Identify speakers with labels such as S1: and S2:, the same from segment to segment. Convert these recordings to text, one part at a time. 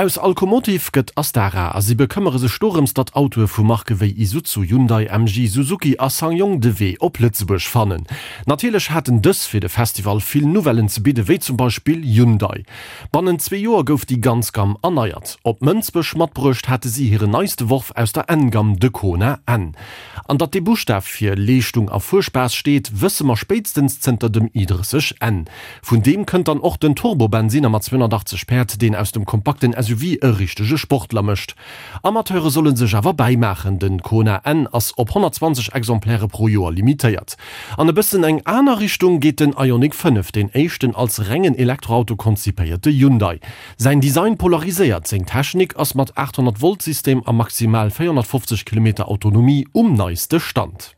S1: Aus Alcomotive gëtt Astara a si bekëmmere sech dorëms, datt Autoe vu Marke wéi Isuzu, Hyundai, MG, Suzuki a SsangYong de Wee op Lëtzebuerg fannen. Natierlech haten dës fir de Festival vill Nouvellen ze bidde wéi zum Beispill Hyundai. Bannent zwee Joer gouf déi ganz Gamm erneiert. Op Mënsbech matbruecht hate si hiren neiste Worf aus der N-Gamm, de Kona N. An datt dee Buschtaf fir Leeschtung a Fuerspaass steet, wësse mer spéitstens zënter dem i30 N. Vun deem kënnt dann och den Turbo-Bensinner mat 280 Päerd, deen aus dem kompakten SUV e richtege Sportler mécht. Amateure solle sech awer bäimaachen, den Kona N ass op 120 Exemplaire pro Joer limitéiert. An e bëssen eng aner Richtung geet den Ioniq 5, deen éischten als rengen Elektroauto konzipéierte Hyundai. Säin Design polariséiert, seng Technik ass mat 800 Volt System a maximal 450 Kilometer Autonomie um neiste Stand.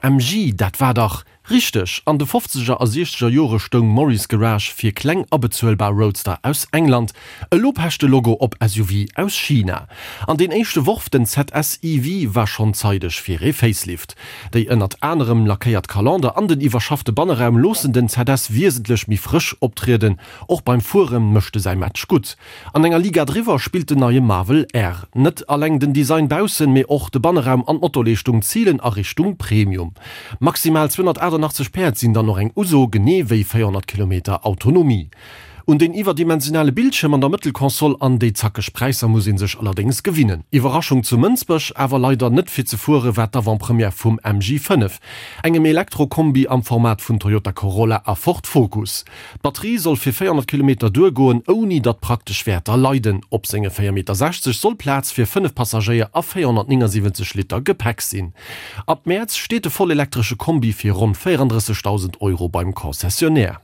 S1: MG, dat war dach Richteg, an de fofzeger a siechzeger Jore stoung Morris Garage fir kleng a bezuelbar Roadster aus England, elo pecht de Logo op SUV aus China. An deen éischte Worf, den ZS EV, war schonn zeideg fir ee Facelift. Déi ënnert anerem lackéiert Kalander an den iwwerschaffte Banneraum loossen den ZS wiesentlech méi frësch optrieden, och beim Fuere mécht e säi Match gutt. An enger Liga driwwer spillt den neie Marvel R. Net alleng den Design baussen, mee och de Banneraum an d'Motorleeschtung zilen a Richtung Premium. Maximal 288 Päerd sinn dann och eng Uso, genee wéi 400 Kilometer Autonomie. Un den iwwerdimensionale Bildschierm an der Mëttelkonsol an déi zackeg Präisser muss ee sech allerdéngs gewinnen. Iwwerraschung zu Mënsbech, awer leider net fir ze fuere war d'Avant-Première vum MG 5, engem Elektro-Kombi am Format vun Toyota Corolla a Ford Focus. D'Batterie soll fir 400 Kilometer duergoen, ouni datt praktesch Wäerter leiden. Op senge 4,60 Meter soll Plaz fir 5 Passagéier a 479 Liter Gepäck sinn. Ab Mäerz steet de vollelektresche Kombi fir ronn 34.000 Euro beim Concessionnaire.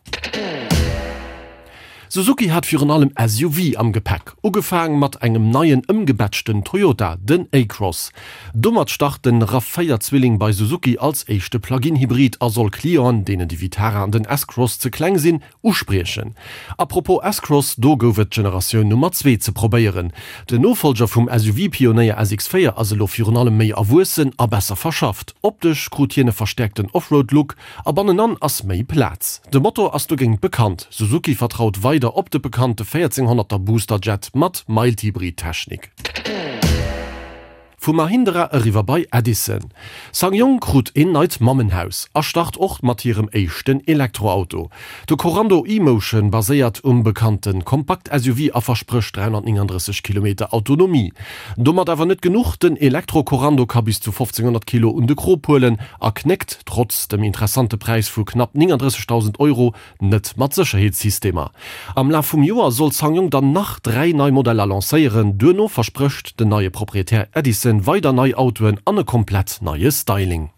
S1: Suzuki hat virun allem SUV am Gepäck, ugefaang mat engem neien ëmgebatchten Toyota, den A-Cross. Domat start den Rav 4 Zwilling bei Suzuki als éischte Plug-in-Hybrid a soll Clienten, deenen de Vitara an den S-Cross ze kleng sinn, uspriechen. A propos S-Cross, do gouf et d'Generatioun Nummer zwee ze probéieren. Den Nofollger vum SUV-Pionéier SX4 ass elo virun allem méi erwuessen a besser verschafft. Optesch krut hien e verstäerkten Offroad-Look a bannenan ass méi Plaz. De Motor ass dogéint bekannt, Suzuki vertraut weider op de bekannte 1400er Boosterjet mat Mild-Hybrid-Technik. Vu Mahindra eriwwer bei Edison. SsangYong krut een neit Mammenhaus a start och mat hirem éischten Elektroauto. De Korando e-Motion baséiert um bekannte Kompakt-SUV a versprécht 339 Kilometer Autonomie. Domat awer net genuch, den Elektro-Korando ka bis zu 1500 Kilo un de Krop huelen a knéckt, trotz dem interessante Präis vu knapp 39.000 Euro, Net mat Sécherheetssystemer. Am Laf vum Joer soll SsangYong dann nach 3 nei Modeller lancéieren. Duerno versprécht den neie Proprietär Edison weider nei Autoen an e komplett neie Styling.